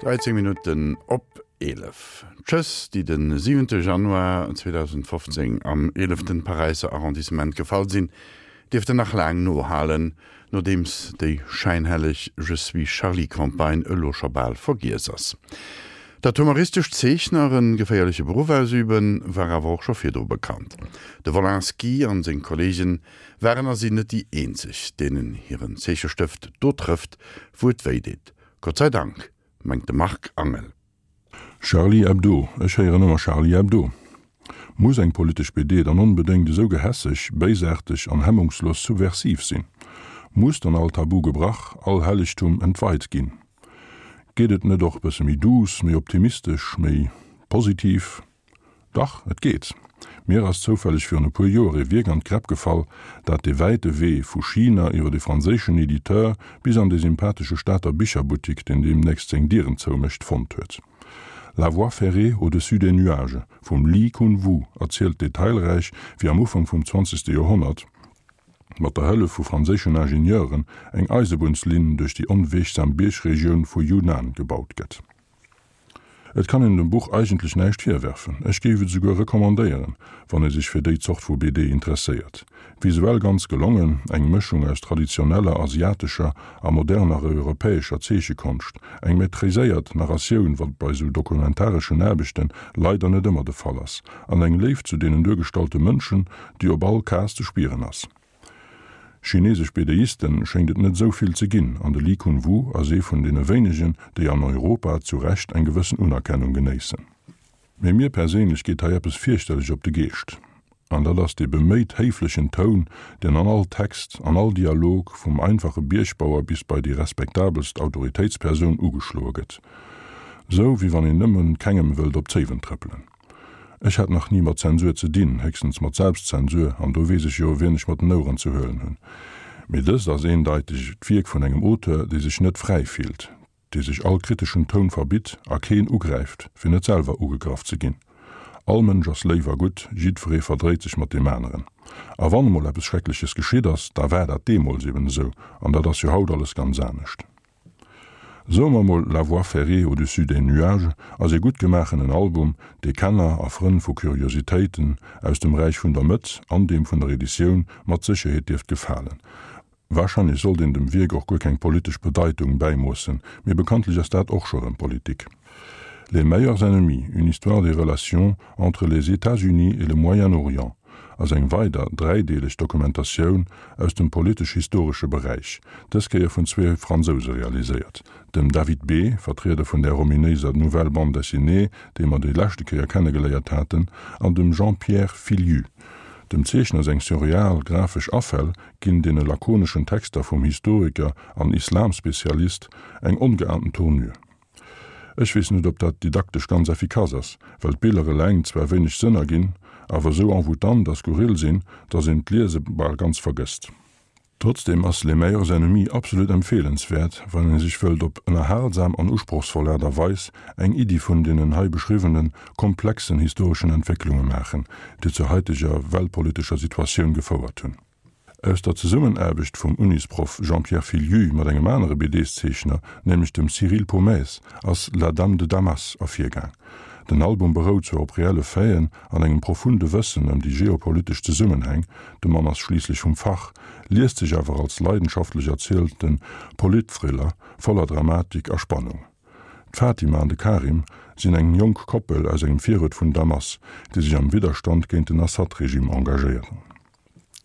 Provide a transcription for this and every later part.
13 Minutten op 11. D'Schëss, déi de siwente Januar 2015 am eeleften Paräisser Arrondissement gefall sinn, dierften nach laang nohalen, nodeems déi schäinhelleg Je suis Charlie-Campagne elo scho bal vergiess ass. Datt humoristesch Zeechner e geféierleche Beruff ausüben, war awer och scho virdru bekannt. De Wolinski an seng Kolleegen waren a sinn net déi eenzeg, deenen hiren Zeechestëft do trëfft, wou et wéi deet. Gott sei Dank, mengt de Marc Angel. Charlie Hebdo, ech héieren ëmmer Charlie Hebdo. Muss eng politesch BD dann onbedéngt esou gehässeg, béisaarteg an hemmungslos subversiv sinn? Muss dann all Tabu gebrach, all Hellegtum entweit ginn? Geet et net och bësse méi douce, méi optimistesch, méi positiv? Dach, et geet. Mir ass zoufälleg virun e puer Joer e Wierk an d'Gräpp gefall, dat de wäite Wee vu China iwwer e franséischen Editeur bis an de sympathesche Stater Bicherbuttik, deen deemnächst seng Dieren zoumécht, fonnt huet. La voie ferrée au-dessus des nuages vum Li Kun-Wu erzielt detailräich, wéi am Ufank vum zwanzegste Joerhonnert, mat der Hëllef vu franséischen Ingenieuren eng Eisebunnslinn duerch déi onweegsam Biergregioun vu Yunnan gebaut gëtt. Et kann een dem Buch eigentlech näischt virwerfen, ech géif et esouguer recommandéieren, wann ee sech fir déi Zort vu BD interesséiert. Visuell ganz gelongen, eng Mëschung aus traditioneller asiatescher a moderner europäescher Zeechekonscht, eng maîtriséiert Narratioun, wat bei sou dokumentareschen Aarbechte leider net ëmmer de Fall ass, an eng Léift zu deenen duergestallte Mënschen, déi op all Case ze spieren ass. Chinesesch BDisten schéngt et net esou vill ze ginn, an de Li Kun-Wu ass ee vun deene wéinegen, déi an Europa zu Recht eng gewëssen Unerkennung genéissen. Mee mir perséinlech geet hei eppes fierchterlech op de Geescht, an dat ass dee beméit héiflechen Toun, deen an all Text, an all Dialog, vum einfache Biergbauer bis bei déi respektabelst Autoritéitspersoun ugeschloe gëtt. Sou wéi wann een nëmmen kengem wëllt op d'Zéiwen trëppelen. Ech hat nach ni mat Zensur ze dinn, héchstens mat Selbstzensur, an do weess ech jo, wien ech mat den Oueren ze huelen hunn. Mee dëst ass eendeiteg d'Wierk vun engem Auteur, dee sech net fräi fillt, dee sech all kriteschen Toun verbitt a keen ugräift, fir net selwer ugegraff ze ginn. All Mënsch ass léif a gutt, jiddweree verdréit sech mat deem aneren. A wann emol eppes Schreckleches geschitt ass, da war dat deemools eben esou, an dat ass jo haut alles ganz anescht. Soe mer mol La voie ferrée au-dessus des nuages ass ee gutt gemaachenen Album, dee Kenner a Frënn vu Kuriositéiten aus dem Räich vun der Mëtt an deem vun der Editioun mat Sécherheet dierft gefalen. Warscheinlech sollt een dem Wierk och guer keng politesch Bedeitung bäimoossen, mee bekanntlech ass dat och scho rëm Politik. Les meilleurs ennemis, une histoire des relations entre les États-Unis et le Moyen-Orient ass eng weider dräideeleg Dokumentatioun aus dem politesch-historesche Beräich, dës Kéier vun zwee Fransouse realiséiert, dem David Bé, Vertrieder vun där ominéiser Nouvelle Bande Dessinée, déi mer déi leschte Kéier kennegeléiert haten, an dem Jean-Pierre Filiu. Dem Zeechner seng surreal grafesch Afäll ginn deene lakoneschen Texter vum Historiker an Islamspezialist eng ongeahnten Tournure. Ech weess net, ob dat didaktesch ganz effikass ass, well d'Biller eleng zwar wéineg Sënn erginn, awer esou envoûtant a skurril sinn, dass een d'Liese bal ganz vergësst. Trotzdem ass Les meilleurs ennemis absolut empfeelenswäert, wann ee sech wëllt op ënnerhalsam an usprochsvoll Aart a Weis eng Iddi vun deenen hei beschriwwene komplexen historeschen Entwécklunge maachen, déi zur haiteger weltpolitescher Situatioun gefouert hunn. Aus der Zesummenaarbecht vum Unisproff Jean-Pierre Filiu mat engem anere BDs-Zeechner, nämlech dem Cyril Pomès, ass La Dame de Damas ervirgaang. Den Album berout zwar op reelle Faiten an engem profunde Wëssen ëm déi geopolitesch Zesummenhäng, de Mann ass schliisslech vum Fach, liest sech awer als leidenschaftlech erzielte Politthriller voller Dramatik a Spannung. D'Fatima an de Karim sinn eng jonk Koppel aus engem Viruert vun Damas, déi sech am Widderstand géint den Assad-Regime engagéieren.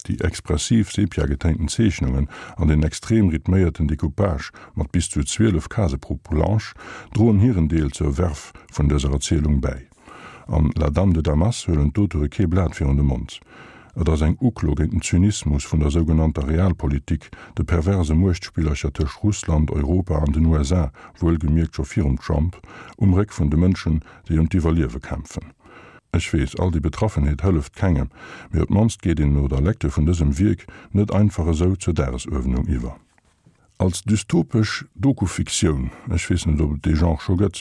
Déi expressiv sepia-getéinten Zeechnungen an den extrem rhythméierten Decoupage mat bis zu 12 Case pro Planche droen hiren Deel zur Verve vun dëser Erzielung bäi. An La Dame de Damas huelen d'Auteure kee Blat virun de Mond. Et ass eng Uklo géint den Zynismus vun der sougenannter Realpolitik, de perverse Muechtspillercher tëscht Russland, Europa an den USA, wuelgemierkt scho virum Trump, um Réck vun de Mënschen, déi ëm d'Iwwerliewe kämpfen. Ech weess, all déi Betraffenheet hëlleft kengem, mee op d'mannst geet een no der Lecture vun dësem Wierk net einfach esou zur Dagesuerdnung iwwer. Als dystopesch Doku-Fiktioun, ech weess net, ob et dee Genre scho gëtt,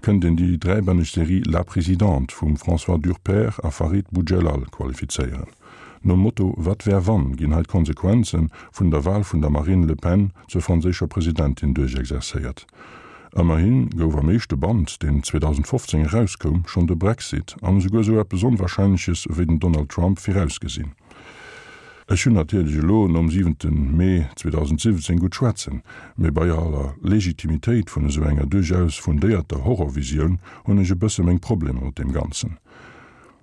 kënnt een déi dräibänneg Serie La Présidente vum François Durper a Farid Boudjellal qualifizéieren. Nom Motto Wat wär wann ginn hei d'Konsequenze vun der Wal vun der Marine Le Pen zur franséischer Presidentin duerchexerzéiert. Ëmmerhi gouf am éischte Band, deen 2015 erauskoum, schonn de Brexit an esouguer esou eppes Onwarscheinleches ewéi den Donald Trump virausgesinn. Ech hunn natierlech elo nom siwente Mee 2017 gutt schwätzen, mee bei aller Legitimitéit vun esou enger duerchaus fundéierter Horrorvisioun hunn ech e bësse meng Problemer mat deem Ganzen.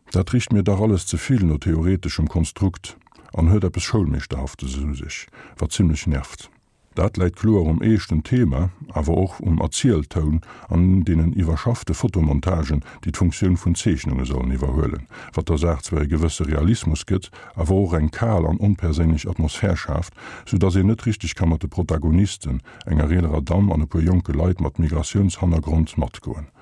Dat richt mir dach alles ze vill no theoreteschem Konstrukt an huet eppes Schoulmeeschterhaftes u sech, wat zimmlech nervt. Dat läit kloer um eeschten Thema, awer och um Erzieltoun an deenen iwwerschaffte Fotomontagen, déi d'Funktioun vun Zeechnunge sollen iwwerhuelen, wat der Saach zwar e gewësse Realismus gëtt, awer och eng kal an onperséinlech Atmosphär schaaft, sou dass een net richteg ka mat de Protagonisten, enger eelerer Damm an e puer jonke Leit mat Migratiounshannergrond, matgoen.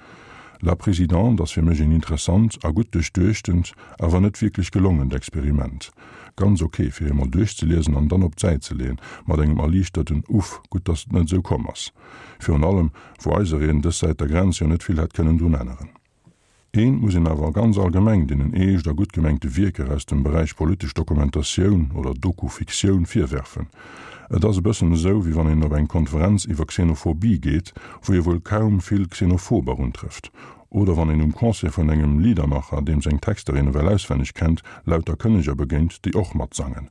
La Présidente ass fir mech een interessant a gutt duerchduechtent, awer net wierklech gelongent Experiment. Ganz ok fir eemol duerchzeliesen an dann op d'Säit ze leeën, mat engem erliichterten Uff, gutt dass et net esou komm ass. Virun allem wou eisereen dës Säit der Grenz jo net vill hätt kënnen drun änneren. Eent muss een awer ganz allgemeng deenen eescht a gutt gemengte Wierker aus dem Beräich politesch Dokumentatioun oder Doku-Fiktioun virwerfen, Et ass e bëssen esou, wéi wann een op eng Konferenz iwwer Xenophobie geet, wou ee wuel kaum vill Xenophober untrëfft. Oder wann een um Concert vun engem Liedermacher, deem seng Texter een ewell auswenneg kennt, lauter Kënneger begéint, déi och matsangen.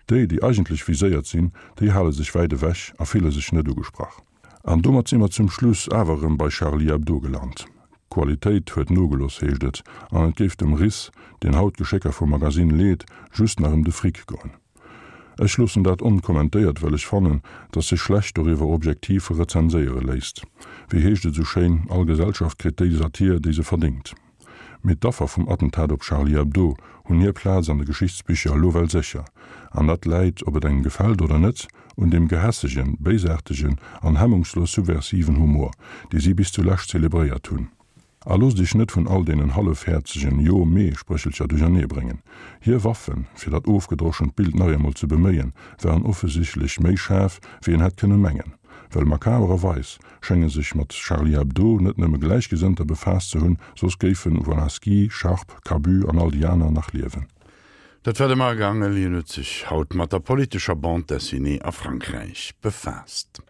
Déi, déi eigentlech viséiert sinn, déi hale sech wäit ewech a fille sech net ugesprach. An domat si mer zum Schluss awer erëm bei Charlie Hebdo gelant. D'Qualitéit huet nogelooss, heescht et, an et géif dem Ris, deen haut d'Geschécker vum Magasinn leet, just nach ëm de Fric goen. Ech loossen dat onkommentéiert, well ech fannen, datt sech schlecht doriwwer objektiv rezenséiere léisst. Wéi heescht et esou schéin, all Gesellschaft kritt déi Satir, déi se verdéngt. Mee d'Affer vum Attentat op Charlie Hebdo hunn hir Plaz an de Geschichtsbicher elo well sécher. An dat läit, ob et engem gefält oder net, un deem gehässegen, béisaartegen an hemmungslos subversiven Humor, dee si bis zulescht zelebréiert hunn. A loosst iech net vun all deenen hallefhäerzegen Jo-Mee-Spréchelcher duerchernee bréngen. Hir Waffen, fir dat ofgedroschent Bild nach eemol ze beméien, waren offesichtlech méi schaarf, wéi een hätt kënne mengen. Well makabererweis schénge sech mat Charlie Hebdo net nëmme Gläichgesënnter befaasst ze hunn, soss géifen Wolaski, Sharp, Cabu an all déi aner nach liewen. Dat war de Marc Angel. Hien huet sech haut mat der politescher Bande dessinée a Frankräich befaasst.